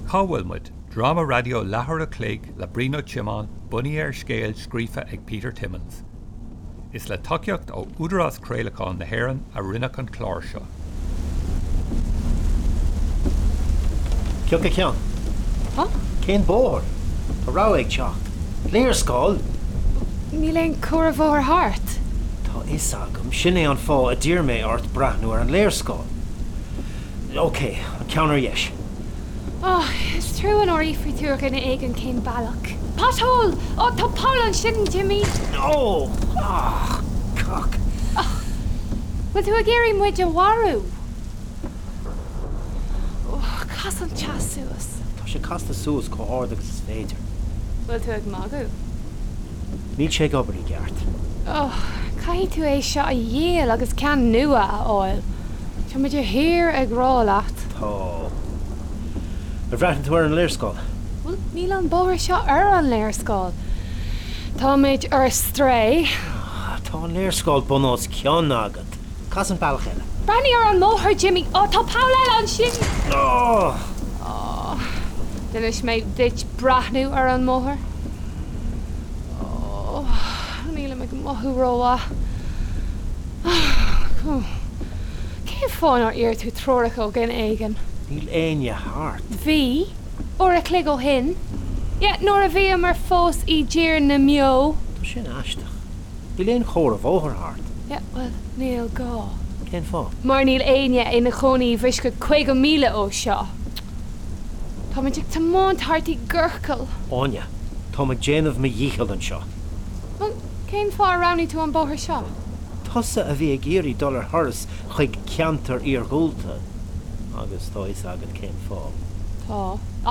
Cá bhfuil muid? Dráma raidió leathuair a chloig le Brian Ó Tiomáin bunaithe ar scéal scríofa ag Peter Timmins. Is le tacaíocht ó Údarás Craolacháin na hÉireann a rinneadh an clár seo. Pioc ceann. Huh? Cén bóthar? Tá rabhadh ag teacht. Léarscáil? Níl aon chomhartha bóthair thart. Tá fhios agam, sin é an fáth a d'iarr mé ort breathnú ar an léarscáil. Ok, an ceann ar dheis. Oh, is trua nár fhiafraigh tú ar dhuine éigin cén bealach. Pothole! Oh, tá poll ansin, Jimí! Oh! Ah! Cac! Oh! Bhfuil tú ag iarraidh muid a mharú? Oh, cas an teas suas. Tá sé casta suas chomh hard agus is féidir. Bhfuil tú ag magadh? Níl sé ag obair i gceart. Oh, caithfidh tú é seo a dhíol agus ceann nua a fháil. Tá mé de shíor ag rá leat. Tá. Ar bhreathnaigh tú ar an léarscáil? Bhuel, níl an bóthar seo ar an léarscáil. Táimid ar strae. Tá an léarscáil bun os cionn agat. Cas an bealach eile. Breathnaigh ar an mbóthar, Jimmy. Ó, tá poll eile ansin! Ó! Ó, d'inis mé duit breathnú ar an mbóthar. Ó, nílim ag mothú rómhaith. Ó, cén fáth nár iarr tú treoracha ó dhuine éigin? Níl éinne thart. Bhí, uair a chloig ó shin. Yeah, nuair a bhíomar fós i dTír na mBeo. Tá sin aisteach. Níl aon chomhartha bóthair thart. Yeah, bhuel, níl gá. Cén fáth? Mar níl éinne ina chónaí i bhfoisceacht 50 míle ó seo. Táimid ag tiomáint thart i gciorcal. Áine, táim ag déanamh mo dhícheall anseo. Bhuel, cén fáth ar roghnaigh tú an bóthar seo? Tusa a bhí ag iarraidh dul ar thuras chuig ceantar iargúlta, agus tá fhios agat cén fáth. Tá,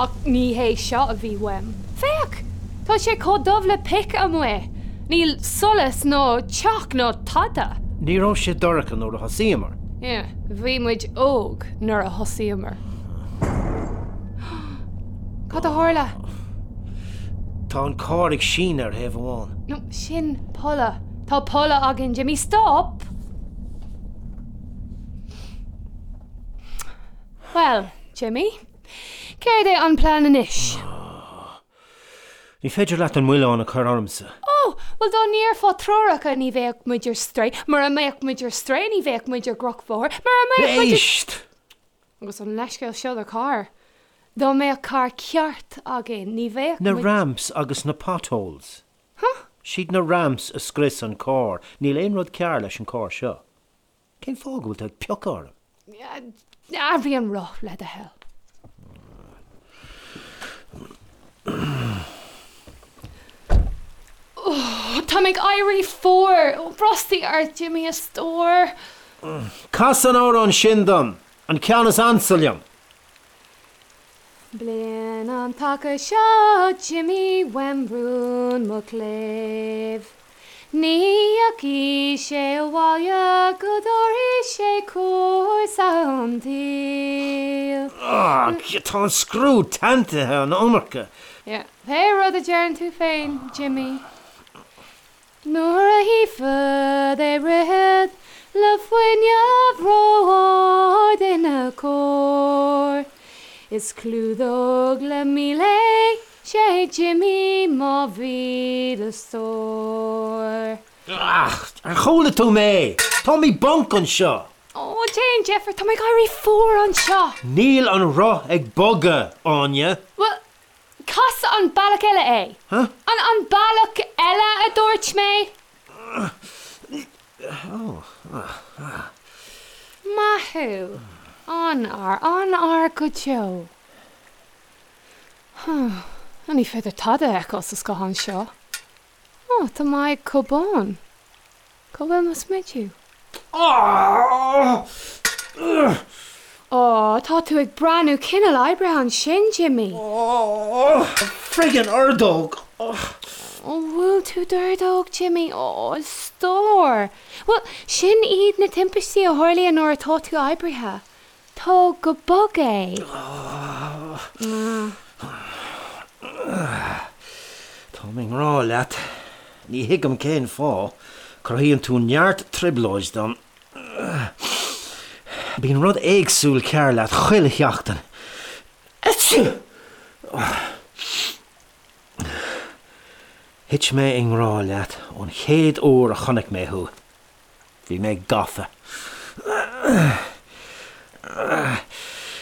ach ní hé seo a bhí uaim. Féach! Tá sé chomh dubh le pic amuigh. Níl solas ná teach ná tada. Ní raibh sé dorcha nuair a thosaíomar. Yeah, bhí muid óg nuair a thosaíomar. Cad a tharla? Tá an carr ag síneadh ar thaobh amháin. No, sin polladh. Tá polladh againn, Jimmy. Stop! Bhuel, Jimmy, céard é an plean anois? Ní féidir leat an milleán a chur ormsa. Ó, bhuel dá n-iarrfá treoracha ní bheadh muid ar strae, mura mbeadh muid ar strae ní bheadh muid ar dhrochbhóthar, mura mbeadh muid ar. Éist! Agus an leithscéal seo do charr. Dá mbeadh carr ceart againn ní bheadh Na muid. ramps agus na potholes. Huh? Siad na ramps a scrios an carr, níl aon rud cearr leis an carr seo. Cén fáth go bhfuil tú ag piocadh orm? Athraigh an roth, le do thoil. Tá mé ag éirí fuar. Brostaigh ort, Jimmy, a stór. Cas an amhrán sin dom, an ceann is ansa liom. Bliain an taca seo, Jimmy, uaim rún mo chléibh. Ní dheachaigh sé abhaile go dtabharfaidh sé cúrsa an tsaoil. Tá an scriú teanntaithe an iomarca. Yeah, pé rud a deireann tú féin, Jimmy. Nuair a chífead é rith le fuinneamh ró-ard ina chóir, is clúdódh le mil é, 'sé Jimmy mo mhíle stór. Ach, ar chuala tú mé? Táim i bponc anseo! Ó, déan deifir, tá mé ag éirí fuar anseo! Níl an roth ag bogadh, Áine. Bhuel, Cas an bealach eile é. Huh? An an bealach eile a dúirt mé. Maith thú. An-fhear, an-fhear go deo. Huh. Ní féidir tada a fheiceáil sa scáthán seo. Ó, tá m'aghaidh chomh bán. Cá bhfuil mo smidiú? Ó, tá tú ag breathnú cineál oibrithe ansin, Jimmy. Ó, friggin ordóg! Ó, bhuail tú d'ordóg, Jimmy. Ó, a stór. Bhuel, sin iad na timpistí a tharlaíonn nuair atá tú oibrithe. Tóg go bog é. Táim i ngrá leat. Ní thuigim cén fáth. Cruthaíonn tú neart trioblóid dom. Bíonn rud éagsúil cearr leat chuile sheachtain. Thit mé i ngrá leat ón chéad uair a chonaic mé thú. Bhí mé gafa.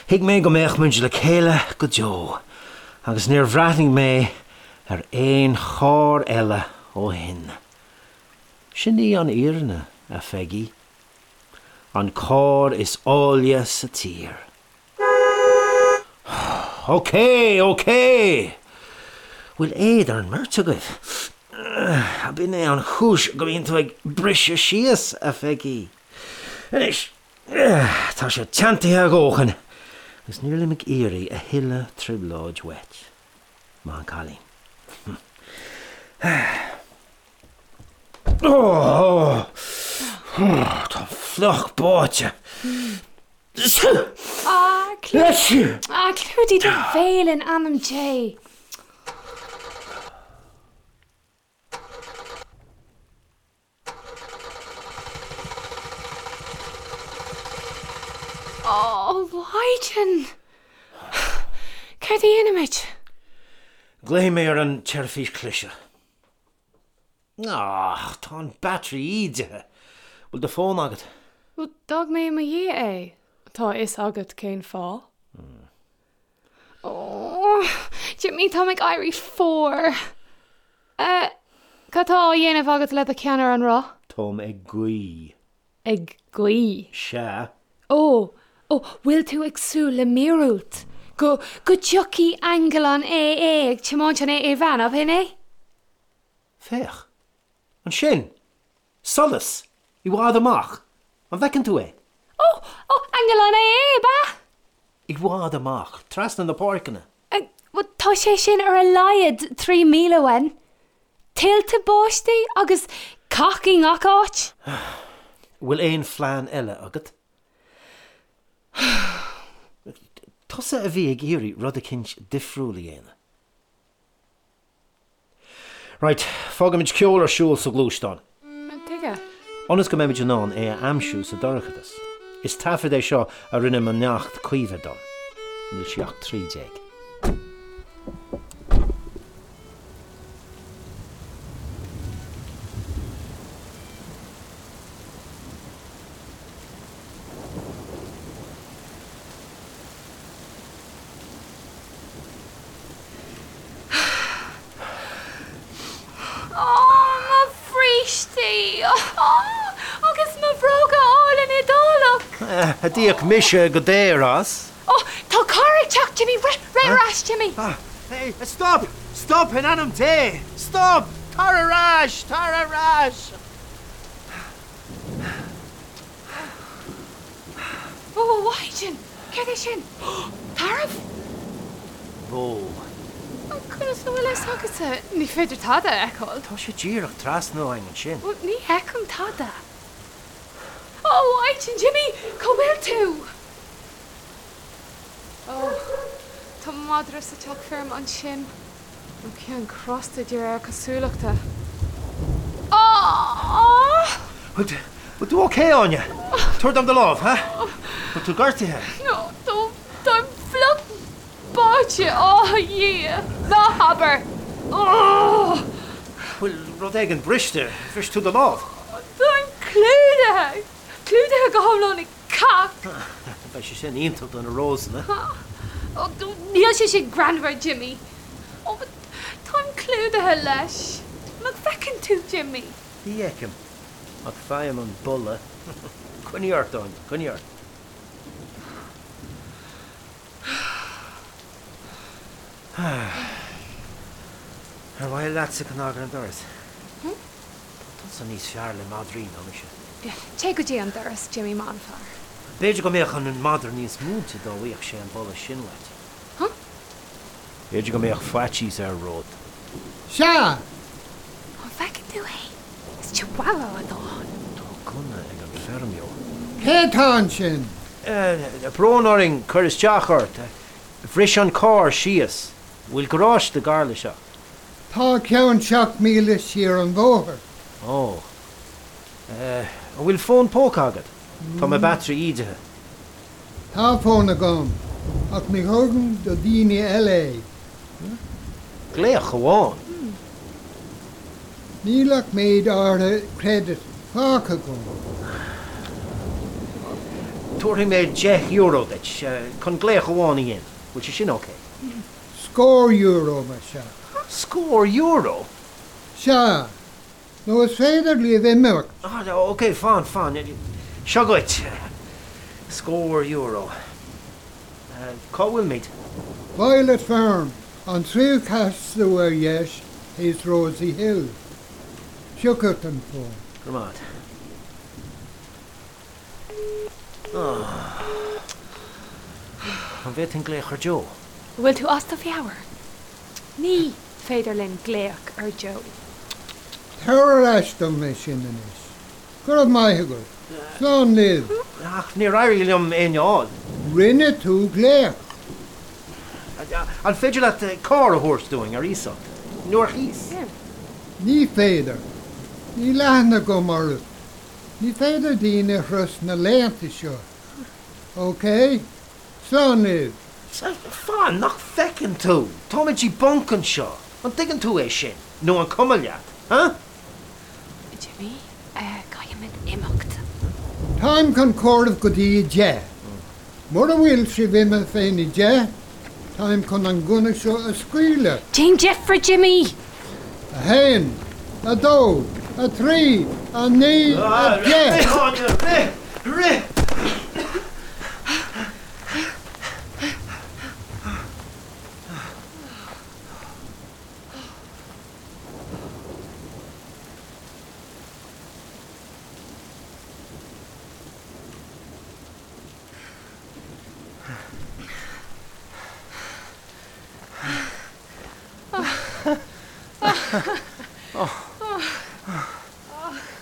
Thuig mé go mbeadh muid le chéile go deo agus níor bhreathnaigh mé ar aon charr eile ó shin. Sin í an fhírinne, a Pheigí. An carr is áille sa tír. Ok, ok! Bhfuil éad ar an mbeirt agaibh? Ab in é an chúis go mbíonn tú ag briseadh síos, a Pheigí? Anois, tá sé teanntaithe a dhóthain agus nílim ag iarraidh a thuilleadh trioblóid uait. Maith an cailín. Táim fliuch báite. Ah, clúdaigh do bhéal in ainm Dé! Ó, a Mhaighdean! Céard a dhéanfaimid? Glaofaidh mé ar an tseirbhís cliseadh. Ach, tá an battery ídithe. Bhfuil do fón agat? Bhuel, d'fhág mé i mo dhiaidh é. Tá a fhios agat cén fáth. Ó, Jimí, táim ag éirí fuar. Eh, cad tá á dhéanamh agat le do cheann ar an roth? Táim ag guí. Ag guí? Sea. Ó, ó, bhfuil tú ag súil le míorúilt? Go, go dtiocfaidh aingeal an AA ag tiomáint an AA van, ab shin é? Féach. Ansin! Solas! I bhfad amach! An bhfeiceann tú é? Ó! Ó! Aingeal an AA, ab ea? I bhfad amach, trasna na páirceanna. Bhuel, tá sé sin ar a laghad 3 míle uainn. Tuilte báistí agus cac i ngach áit. Bhfuil aon phlean eile agat? Tusa a bhí ag iarraidh rud eicínt difriúil a dhéanamh. Right, fágfaimid ceol ar siúl sa ghluaisteán. Tuige? Ionas go mbeimid in ann é a aimsiú sa dorchadas. Is taifead é seo a rinne mo neacht Caoimhe dom. Níl sí ach 13. Ó, mo bhrístí! Agus mo bhróga álainn Iodálach! A d'íoc mise go daor as. Ó, tá carr ag teacht, Jimmy! Rith, rith ar ais, Jimmy! Hey, stop! Stop, in ainm Dé! Stop! Tar ar ais! Tar ar ais! Ó, a Mhaighdean! Céard é sin? Tarbh? Bó. Conas a bhfuil a fhios agatsa? Ní féidir tada a fheiceáil. Tá sé díreach trasna uainn ansin. Bhuel, ní fheicim tada. Ó, a Mhaighdean, Jimmy! Cá bhfuil tú? Ó, tá madra sa teach feirme ansin. Nó ceann crosta de réir cosúlachta. Aww! Bhfuil tú ok, Áine? Tabhair dom do lámh, ha? Bhfuil tú gortaithe? No, táim fliuch báite, á a Dhia! Ná habair! Aww! Bhfuil rud éigin briste? Bhris tú do lámh? Táim clúdaithe! Clúdaithe go hiomlán i cac! Beidh sé sin iontach do na rósanna. Ó, níl sé sin greannmhar, Jimmy. Ó, táim clúdaithe leis. Nach bhfeiceann tú, Jimmy? Ní fheicim, ach faighim an boladh. Coinnigh ort, Áine, coinnigh ort. Ar mhaith leatsa cnag ar an doras? Tá tusa níos fearr le madraí ná mise. Téigh go dtí an doras, Jimmy, maith an fear. B'fhéidir go mbeadh an madra níos múinte dá bhfaigheadh sé an boladh sin uait. Huh? B'fhéidir go mbeadh faitíos air romhat. Sea! An bhfeiceann tú é? Is chihuahua atá ann. Tá gunna ag an feirmeoir. Cé atá ansin? Brón orainn cur isteach ort. Bhris an carr síos. Bhfuil garáiste gar le seo? Tá ceann 7 míle siar an bhóthar. Ó. An bhfuil fón póca agat? Tá mo battery ídithe. Tá fón agam, ach ní thugaim do dhaoine eile é. Glaoch amháin. Níl ach méid áirithe credit fágtha agam. Tabharfaidh mé €10 duit chun glaoch amháin a dhéanamh. Bhfuil sé sin ok? Scór euro, más ea. Scór euro? Sea. Nó is féidir libh imeacht. Ok, fan, fan. Seo dhuit. Scór euro. Cá bhfuilimid? Violet Farm, an tríú casadh ar dheis théis Rosie Hill. Seo chugat an fón. Go raibh maith agat. An bhféadfainn glaoch ar Joe? An bhfuil tú as do mheabhair? Ní féidir linn glaoch ar Joe. Tabhair ar ais dom é sin anois. Go raibh maith agat. Slán libh. Ach níor éirigh liom éinne a fháil. Rinne tú glaoch. An féidir leat carr a thabhairt dúinn ar iasacht? Nó ar chíos? Ní féidir. Níl aithne agam oraibh. Ní féidir daoine a thrust na laethanta seo. Ok? Slán libh. Fan, nach bhfeiceann tú? Táimid i bponc anseo. An dtuigeann tú é sin? Nó an cuma leat? Huh? Jimmy, caithfimid imeacht. Táim chun comhaireamh go dtí 10. Mura bhfuil sibh imithe féna 10, táim chun an gunna seo a scaoileadh. Déan deifre, Jimmy! 1, 2, 3, 9, 10! Rith, Áine, rith! Rith!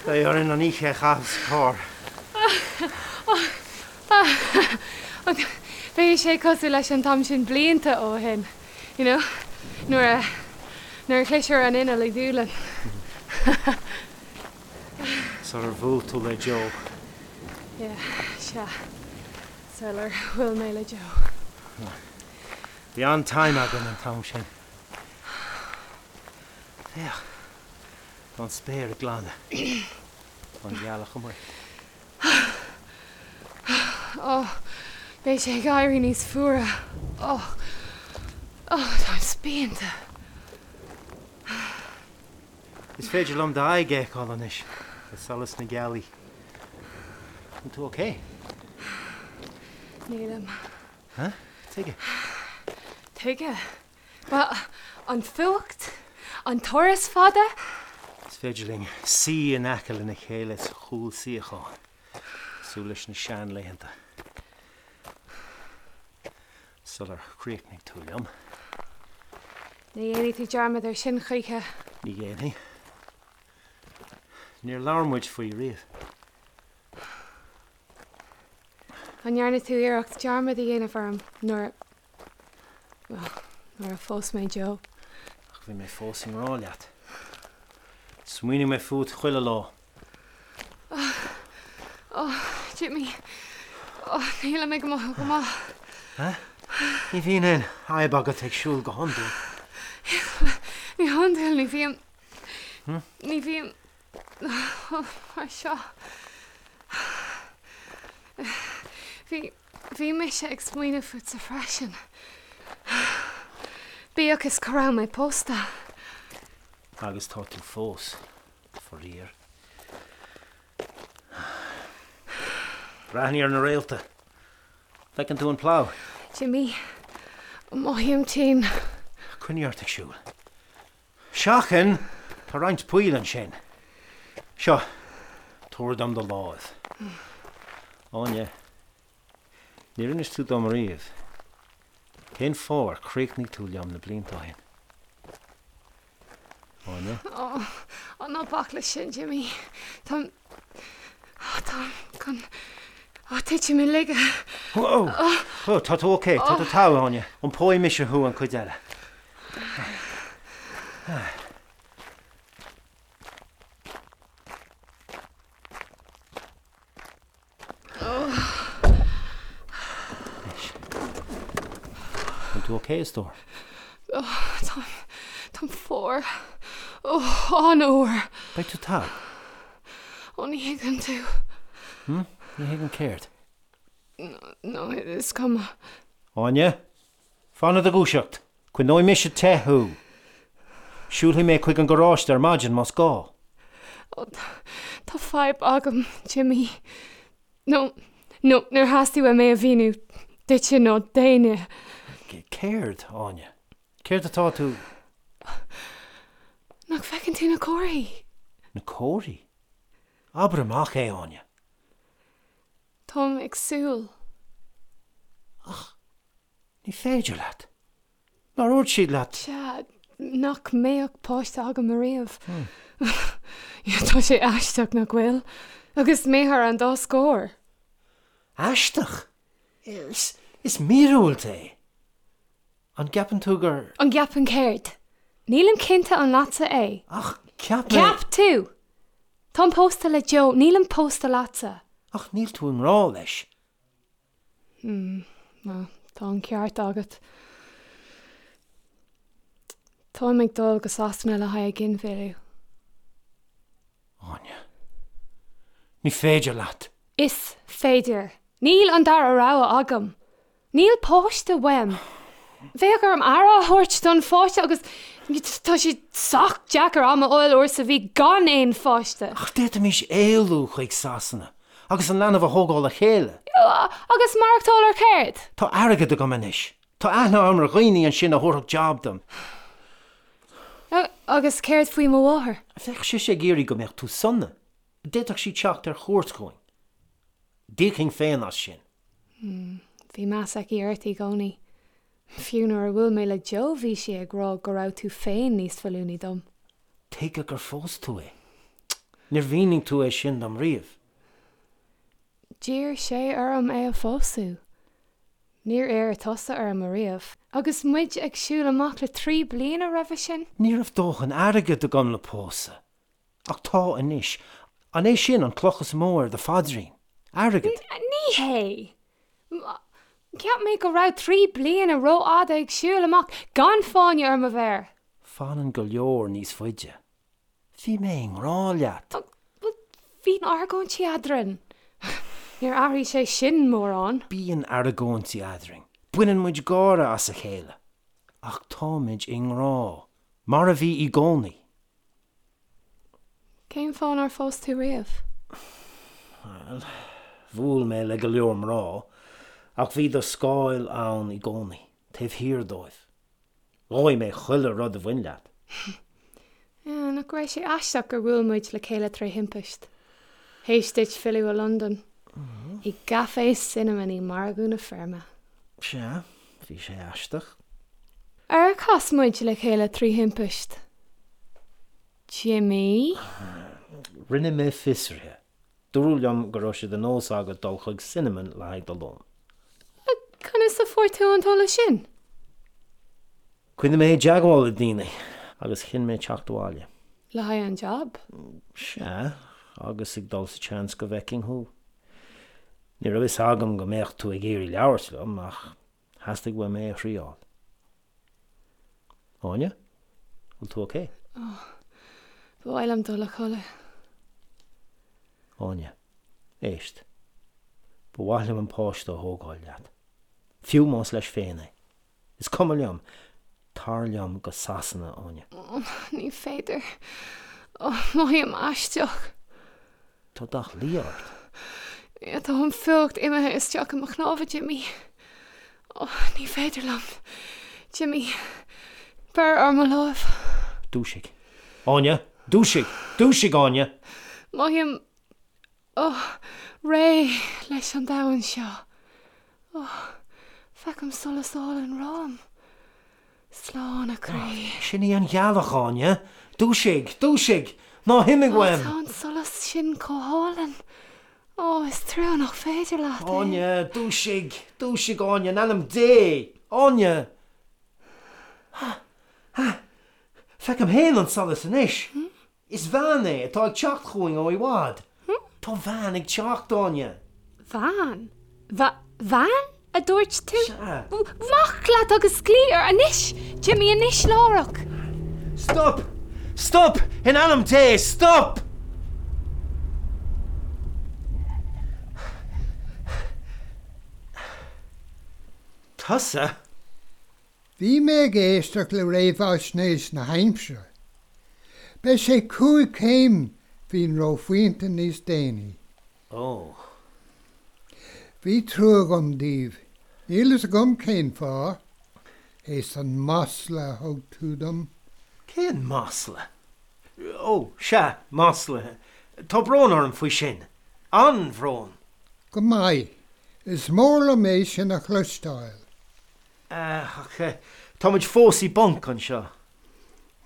Beidh orainn an oíche a chaitheamh sa charr. Beidh sé cosúil leis an t-am sin blianta ó shin, you know, nuair a, nuair a chlis ar an inneall i Dúlainn. Sular bhuail tú le Joe. Yeah, sea. Sular bhuail mé le Joe. Bhí an-time againn an t-am sin. Féach, tá an spéir ag glanadh. Tá an ghealach amuigh. Ó, beidh sé ag éirí níos fuaire. Ó, ó, táim spíonta. Is féidir liom d'aghaidh a fheiceáil anois le solas na gealaí. An tú ok? Nílim. Huh? Tuige? Tuige? Bhuel, an fuacht? An turas fada? Is féidir linn suí in aice lena chéile sa chúlsuíochán, cosúil leis na seanlaethanta. Sular chríochnaigh tú liom. Ní dhéanfaidh tú dearmad air sin choíche. Ní dhéanfaidh. Níor labhair muid faoi riamh. An ndearna tú iarracht dearmad a dhéanamh orm nuair, bhuel, nuair a phós mé Joe? Ach bhí mé fós i ngrá leat. Smaoinigh mé fút chuile lá. Ó, Jimmy, ó, nílim ag mothú go maith. Huh? Ní bhíonn aon fhadhb agat ag siúl go hiondúil. Ní hiondúil, ní bhím, ní bhím mar seo. Bhí, bhí mise ag smaoineamh fútsa freisin. Bíodh is go raibh mé pósta. Agus tá tú fós. Faraor. Breathnaigh ar na réalta. Feiceann tú an plough? Jimmy, mothaím tinn. Coinnigh ort ag siúl. Seachain! Tá roinnt poill ansin. Seo, tabhair dom do láimh. Áine, níor inis tú dom riamh cén fáth ar chríochnaigh tú liom na blianta ó shin. Áine? Ó, ó, ná bac leis sin, Jimmy. Táim, táim chun, ó, titim i laige. Ó, ó, tá tú ok, tá tú togha, Áine. Iompóidh mise thú an chuid eile. Anois. An tú ok, a stór? Táim, táim fuar. Ó, an-fhuar. Beidh tú togha. Ó, ní thuigeann tú. Hm? Ní thuigim céard? No, is cuma. Áine, fan i do dhúiseacht. Coinneoidh mise te thú. Siúlfaidh mé chuig an gharáiste ar maidin más gá. Ó, tá fadhb agam, Jimí. No, no, níor theastaigh uaim é a mhíniú duitse nó d'éinne. Céard, Áine? Céard atá tú. Nach bhfeiceann tú na comharthaí? Na comharthaí? Abair amach é, Áine. Táim ag súil. Ach ní féidir leat. Nár dhúirt siad leat? Sea, nach mbeadh páiste agam ariamh. Tá sé aisteach, nach bhfuil? Agus mé thar an dá scór. Aisteach? Is, is míorúilt é. An gceapann tú gur. An gceapaim céard? Nílim cinnte an leatsa é. Ach cheap mé. Cheap tú! Táim pósta le Joe, nílim pósta leatsa. Ach níl tú i ngrá leis. Hmm, bhuel, tá an ceart agat. Táim ag dul go Sasana le haghaidh ginmhilleadh. Áine. Ní féidir leat! Is féidir. Níl an dara rogha agam. Níl páiste uaim. Bheadh orm aire a thabhairt don pháiste agus tá sé sách deacair am a fháil uair sa mhí gan aon pháiste. Ach d'fhéadfaimis éalú chuig Sasana agus an leanbh a thógáil le chéile. Agus maireachtáil ar céard? Tá airgead agam anois. Tá aithne agam ar dhaoine ansin a thabharfadh jab dom. Agus céard faoi mo mháthair? Bheadh sise ag iarraidh go mbeadh tú sona. D'fhéadfadh sí teacht ar chuairt chugainn. D'íocfainn féin as sin. Bhí meas aici ort i gcónaí. Fiú nuair a bhuail mé le Joe bhí sí ag rá go raibh tú féin níos feiliúnaí dom. Tuige gur phós tú é? Níor mhínigh tú é sin dom riamh. D'iarr sé orm é a phósadh. Níor iarr tusa orm ariamh. Agus muid ag siúl amach le 3 bliana roimhe sin. Ní raibh dóthain airgid agam le pósadh. Ach tá anois. An é sin an cloch is mó ar do phaidrín? Airgead? Ní hé. Cheap mé go raibh 3 bliana rófhada ag siúl amach gan fáinne ar mo mhéar. Fanann go leor níos faide. Bhí mé i ngrá leat. Bhuel, bhí argóintí eadrainn. Níor athraigh sé sin mórán. Bíonn argóintí eadrainn. Baineann muid gáire as a chéile. Ach táimid i ngrá. Mar a bhí i gcónaí. Cén fáth nár phós tú riamh? Bhuel, bhuail mé le go leor mná, ach bhí do scáil ann i gcónaí, taobh thiar dóibh. Dhóigh mé chuile rud a bhain leat. Nach raibh sé aisteach gur bhuail muid le chéile tré thimpist? Théis duit filleadh ó Londain. I gCafé Cinnamon i Margadh na Feirme. Sea, bhí sé aisteach. Ar chas muid le chéile trí thimpist? Jimí? Rinne mé fiosruithe. Dúradh liom go raibh sé de nós agat dul chuig Cinnamon le haghaidh do lóin. Conas a fuair tú an t-eolas sin? Choinnigh mé i dteagmháil le daoine agus chinn mé teacht abhaile. Le haghaidh an jab? Sea, agus ag dul sa tseans go bhfeicfinn thú. Ní raibh fhios agam go mbeadh tú ag iarraidh labhairt liom, ach theastaigh uaim é a thriáil. Áine? Bhfuil tú ok? Oh, ba mhaith liom dul a chodladh. Áine, éist. Ba mhaith liom an páiste a thógáil leat. Fiú más leis féin é. Is cuma liom. Tar liom go Sasana, Áine. Oh, ní féidir. Oh, mothaím aisteach. Tá dath liath ort. Yeah, tá an fuacht imithe isteach i mo chnámha, Jimí. Oh, ní féidir liom. Jimí, beir ar mo láimh. Dúisigh. Áine! Dúisigh! Dúisigh, Áine! Mothaím, oh, réidh leis an domhan seo. Oh, feicim solas álainn romham. Slán, a chroí. Sin í an ghealach, Áine. Dúisigh! Dúisigh! Ná himigh uaim! Tá an solas sin chomh hálainn. Ó, is trua nach féidir leat é. Áine, dúisigh! Dúisigh, Áine, in ainm Dé! Áine! Ha! Ha! Feicim féin an solas anois! Is veain é atá ag teacht chugainn ó i bhfad. Tá veain ag teacht, Áine! Veain? Veain? A dúirt tú? Sea. Amach leat agus glaoigh air anois! Jimí, anois láithreach! Stop! Stop! In ainm Dé, stop! Tusa? Bhí mé ag éisteacht le réamhaisnéis na haimsire. Beidh sé 5 céim faoin reophointe níos déanaí. Ó. Bhí trua agam daoibh. Níl fhios agam cén fáth. Théis an masla a thug tú dom. Cén masla? Ó, sea, masla. Tá brón orm faoi sin. An-bhrón. Go maith. Is mór liom é sin a chloisteáil. Ach táimid fós i bponc anseo.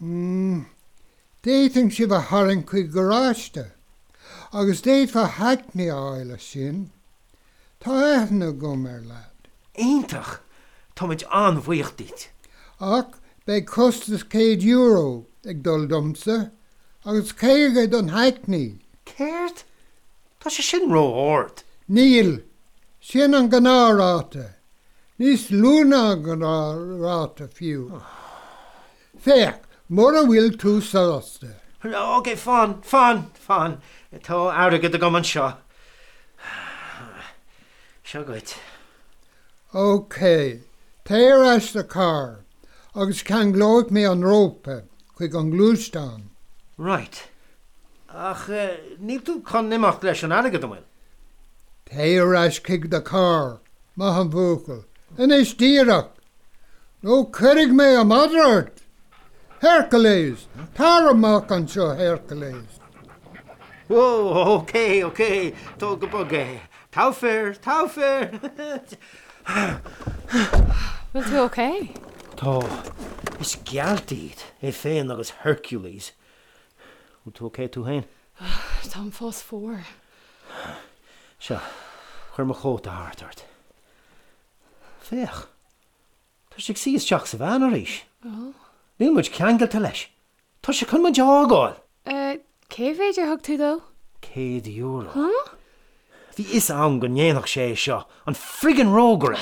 Mm. D'fhéadfainn sibh a tharraingt chuig garáiste. Agus d'fhéadfá hackney a fháil as sin. Tá aithne agam ar leaid. Iontach! Táimid an-bhuíoch díot. Ach beidh costas €100 ag dul domsa, agus 50 don hackney. Céard? Tá sé sin ró-ard. Níl. Sin an gnáthráta. Níos lú ná an gnáthráta fiú. Féach, mura bhfuil tú sásta. Ok, fan, fan, fan. Tá airgead agam anseo. Seo dhuit. Ok, téigh ar ais sa charr agus ceanglóidh mé an rópa chuig an ngluaisteán. Right. Ach níl tú chun imeacht leis an airgead, an bhfuil? Téigh ar ais chuig do charr, maith an buachaill. Anois díreach! Nó cuirfidh mé an madra ort! Hercules! Tar amach anseo, Hercules! Whoa, ok, ok, tóg go bog é. Togha fear, togha fear! Bhfuil tú ok? Tá. Is gealt iad, é féin agus Hercules. Bhfuil tú ok tú féin? Táim fós fuar. Seo, cuir mo chóta thart ort. Féach, tá sé ag suí isteach sa veain arís. Níl muid ceangailte leis. Tá sé chun muid a fhágáil! Cé mhéid ar thug tú dó? €100. Huh? Bhí fhios a'm go ndéanfadh sé é seo, an friggin rógaire!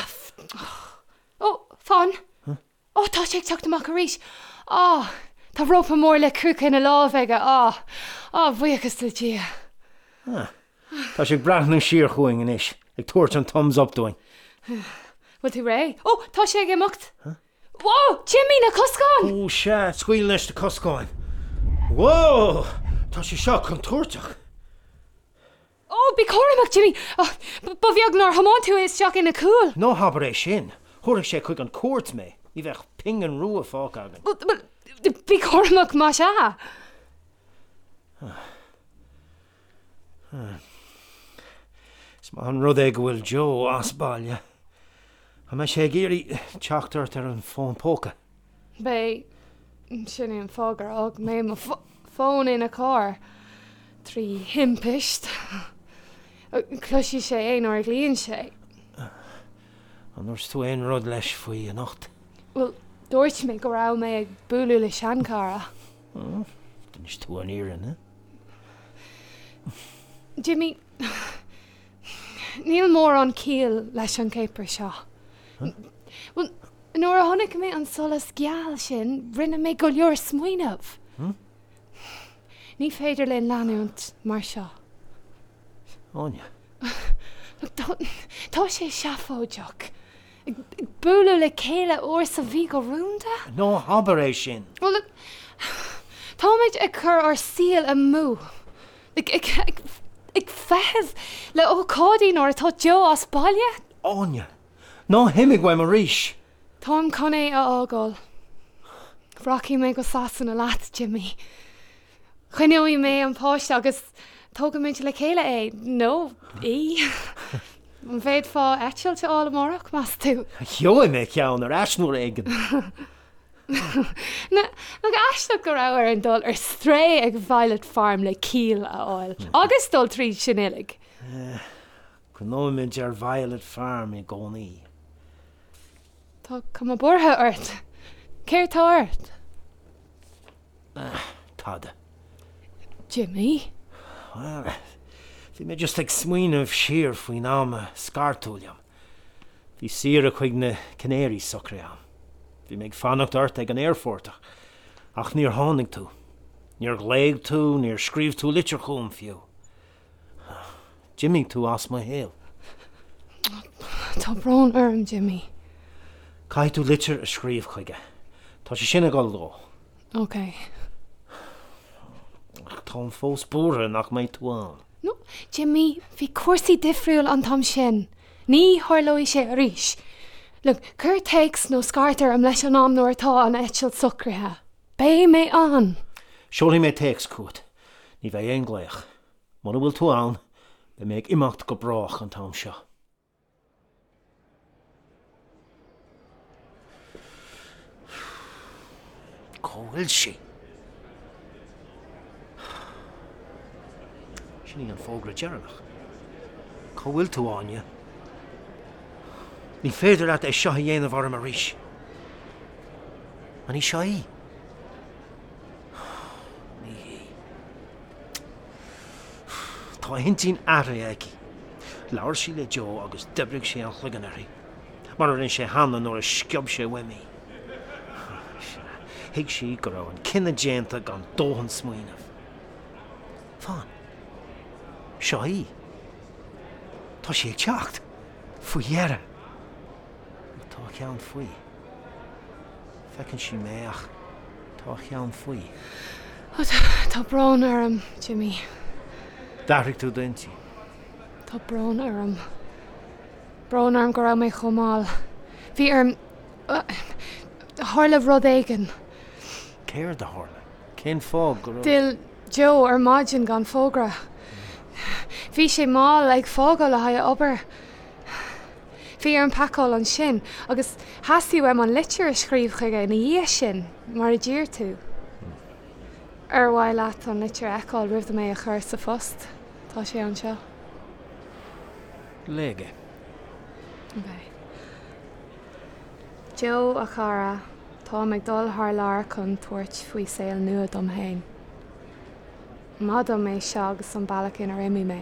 Ó, fan! Ó, tá sé ag teacht amach arís! Á, tá rópa mór le crúca ina láimh aige, á, á, buíochas le Dia. Ah, tá sé ag breathnú siar chugainn anois, ag tabhairt an thumbs up dúinn. Bhfuil tú réidh? Ó, tá sé ag imeacht! Whoa! Jimí, na coscáin! Ó, sea, scaoil leis na coscáin. Whoa! Tá sé seo contúirteach. Ó, bí cúramach, Jimí! Ba bheag nár thiomáin tú isteach ina chúl. Ná habair é sin! Thabharfadh sé chuig an chúirt mé. Ní bheadh pingin rua fágtha againn. Bhuel, bí cúramach más ea. Is maith an rud é go bhfuil Joe as baile. An mbeidh sé ag iarraidh teacht ort ar an bhfón póca? Beidh. Sin é an fáth gur fhág mé mo fón ina charr. Trí thimpist. Cloisfidh sé é nuair a ghlaonn sé. An ndúirt tú aon rud leis faoi anocht? Bhuel, dúirt mé go raibh mé ag bualadh le seanchara. D'inis tú an fhírinne. Jimí, níl mórán ciall leis an caper seo. Bhuel, nuair a chonaic mé an solas geal sin, rinne mé go leor smaoineamh. Ní féidir linn leanúint mar seo. Áine. Tá sé seafóideach. Ag bualadh le chéile uair sa mhí go rúnda? Ná habair é sin! Bhuel, look, táimid ag cur ár saoil amú. Ag, ag, ag, ag feitheamh le ócáidí nuair atá Joe as baile. Áine, ná himigh uaim arís! Táim chun é a fhágáil. Rachaidh mé go Sasana leat, Jimí. Coinneoidh mé an páiste agus tógfaimid le chéile é, nó í. An bhféadfá eitilt a fháil amárach, meas tú? Gheobhaidh mé ceann ar ais uair éigin. Nach aisteach go raibh orainn dul ar strae ag Violet Farm le ciall a fháil, agus dul tríd sin uilig. Cuimhneoimid ar Violet Farm i gcónaí. Tá cuma buartha ort. Céard tá ort? Tada. Jimí? Bhuel, bhí mé just ag smaoineamh siar faoin am a scar tú liom. Bhí saoire chuig na Canaries socraithe agam. Bhí mé ag fanacht ort ag an aerfort ach níor tháinig tú. Níor ghlaoigh tú, níor scríobh tú litir chugam fiú. D'imigh tú as mo shaol. Tá brón orm, Jimmy. Caithfidh tú litir a scríobh chuige. Tá sé sin ag dul dó. Ok. Ach táim fós buartha nach mbeidh tú ann. No, Jimmy, bhí cúrsaí difriúil an t-am sin. Ní tharlóidh sé arís. Look, cuir téacs nó scairt orm leis an am nuair atá an eitilt socraithe. Beidh mé ann. Seolfaidh mé téacs chugat. Ní bheidh aon ghlaoch. Mura bhfuil tú ann, beidh mé ag imeacht go brách an t-am seo. Cá bhfuil sí? Sin í an fógra deireanach. Cá bhfuil tú, Áine? Ní féidir leat é seo a dhéanamh orm arís. An í seo í? Ní hí. Tá a hintinn athraithe aici. Labhair sí le Joe agus d'oibrigh sé an chloigeann uirthi, mar a rinne sé cheana nuair a sciob sé uaim í. Sea, thuig sí go raibh an cinneadh déanta gan dóthain smaoinimh. Fan. Seo í. Tá sí ag teacht. Faoi dheireadh. Ach tá a cheann faoi. Feiceann sí mé ach tá a cheann faoi. Ó tá brón orm, Jimmy. D'athraigh tú d'intinn. Tá brón orm. Brón orm go raibh mé chomh mall. Bhí orm. Tharla rud éigin. Céard a tharla? Cén fáth go raibh. D'fhill Joe ar maidin gan fógra. Bhí sé mall ag fágáil le haghaidh a obair. Bhí orm pacáil ansin agus theastaigh uaim an litir a scríobh chuige ina dhiaidh sin, mar a d'iarr tú. Ar mhaith leat an litir a fheiceáil roimh dom é a chur sa phost? Tá sé anseo. Léigh é. Ok. Joe, a chara, táim ag dul thar lear chun tabhairt faoi saol nua dom féin. Maith dom é seo agus an bealach inar imigh mé.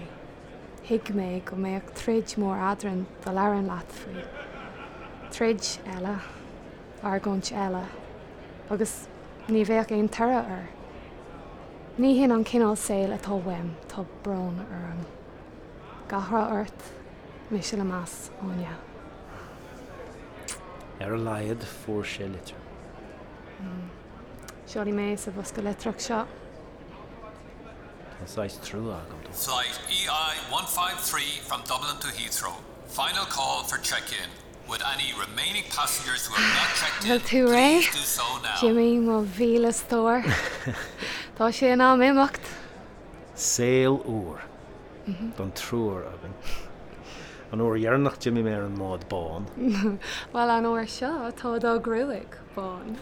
Thuig mé go mbeadh troid mhór eadrainn dá labhrainn leat faoi. Troid eile. Argóint eile. Agus ní bheadh aon toradh air. Ní hin an cineál saoil atá uaim, tá brón orm. Gach rath ort, mise le meas, Áine. Ar a laghad fuair sé litir. Seolfaidh mé é sa bhosca litreach seo. Tá saghas trua agam dó. Flight EI153 from Dublin to Heathrow. Final call for check-in. Would any remaining passengers who have not checked in Bhfuil tú réidh? please do so now. Jimmy, mo mhíle stór. Tá sé in am imeacht. Saol úr don triúr againn. An uair dheireanach d'imigh mé ar an mbád bán. Bhuel, an uair seo tá do ghruaig bán.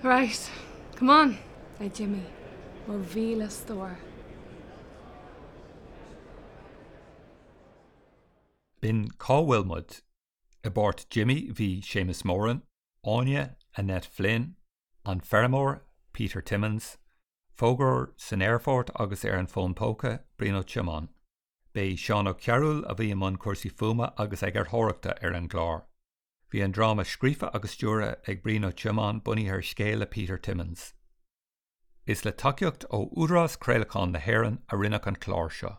Right, come on! A Jimmy, mo mhíle stór. B'in Cá bhfuil muid? I bpáirt Jimmy bhí Séamus Moran, Áine, Annette Flynn, An Feirmeoir, Peter Timmins, Fógróir san aerfort agus ar an bhfón póca, Brian Ó Tiomáin. B'é Seán Ó Cearúil a bhí i mbun cúrsaí fuaime agus eagarthóireachta ar an gclár. Bhí an dráma scríofa agus stiúrtha ag Brian Ó Tiomáin bunaithe ar scéal le Peter Timmins. Is le tacaíocht ó Údarás Craolacháin na hÉireann a rinneadh an clár seo.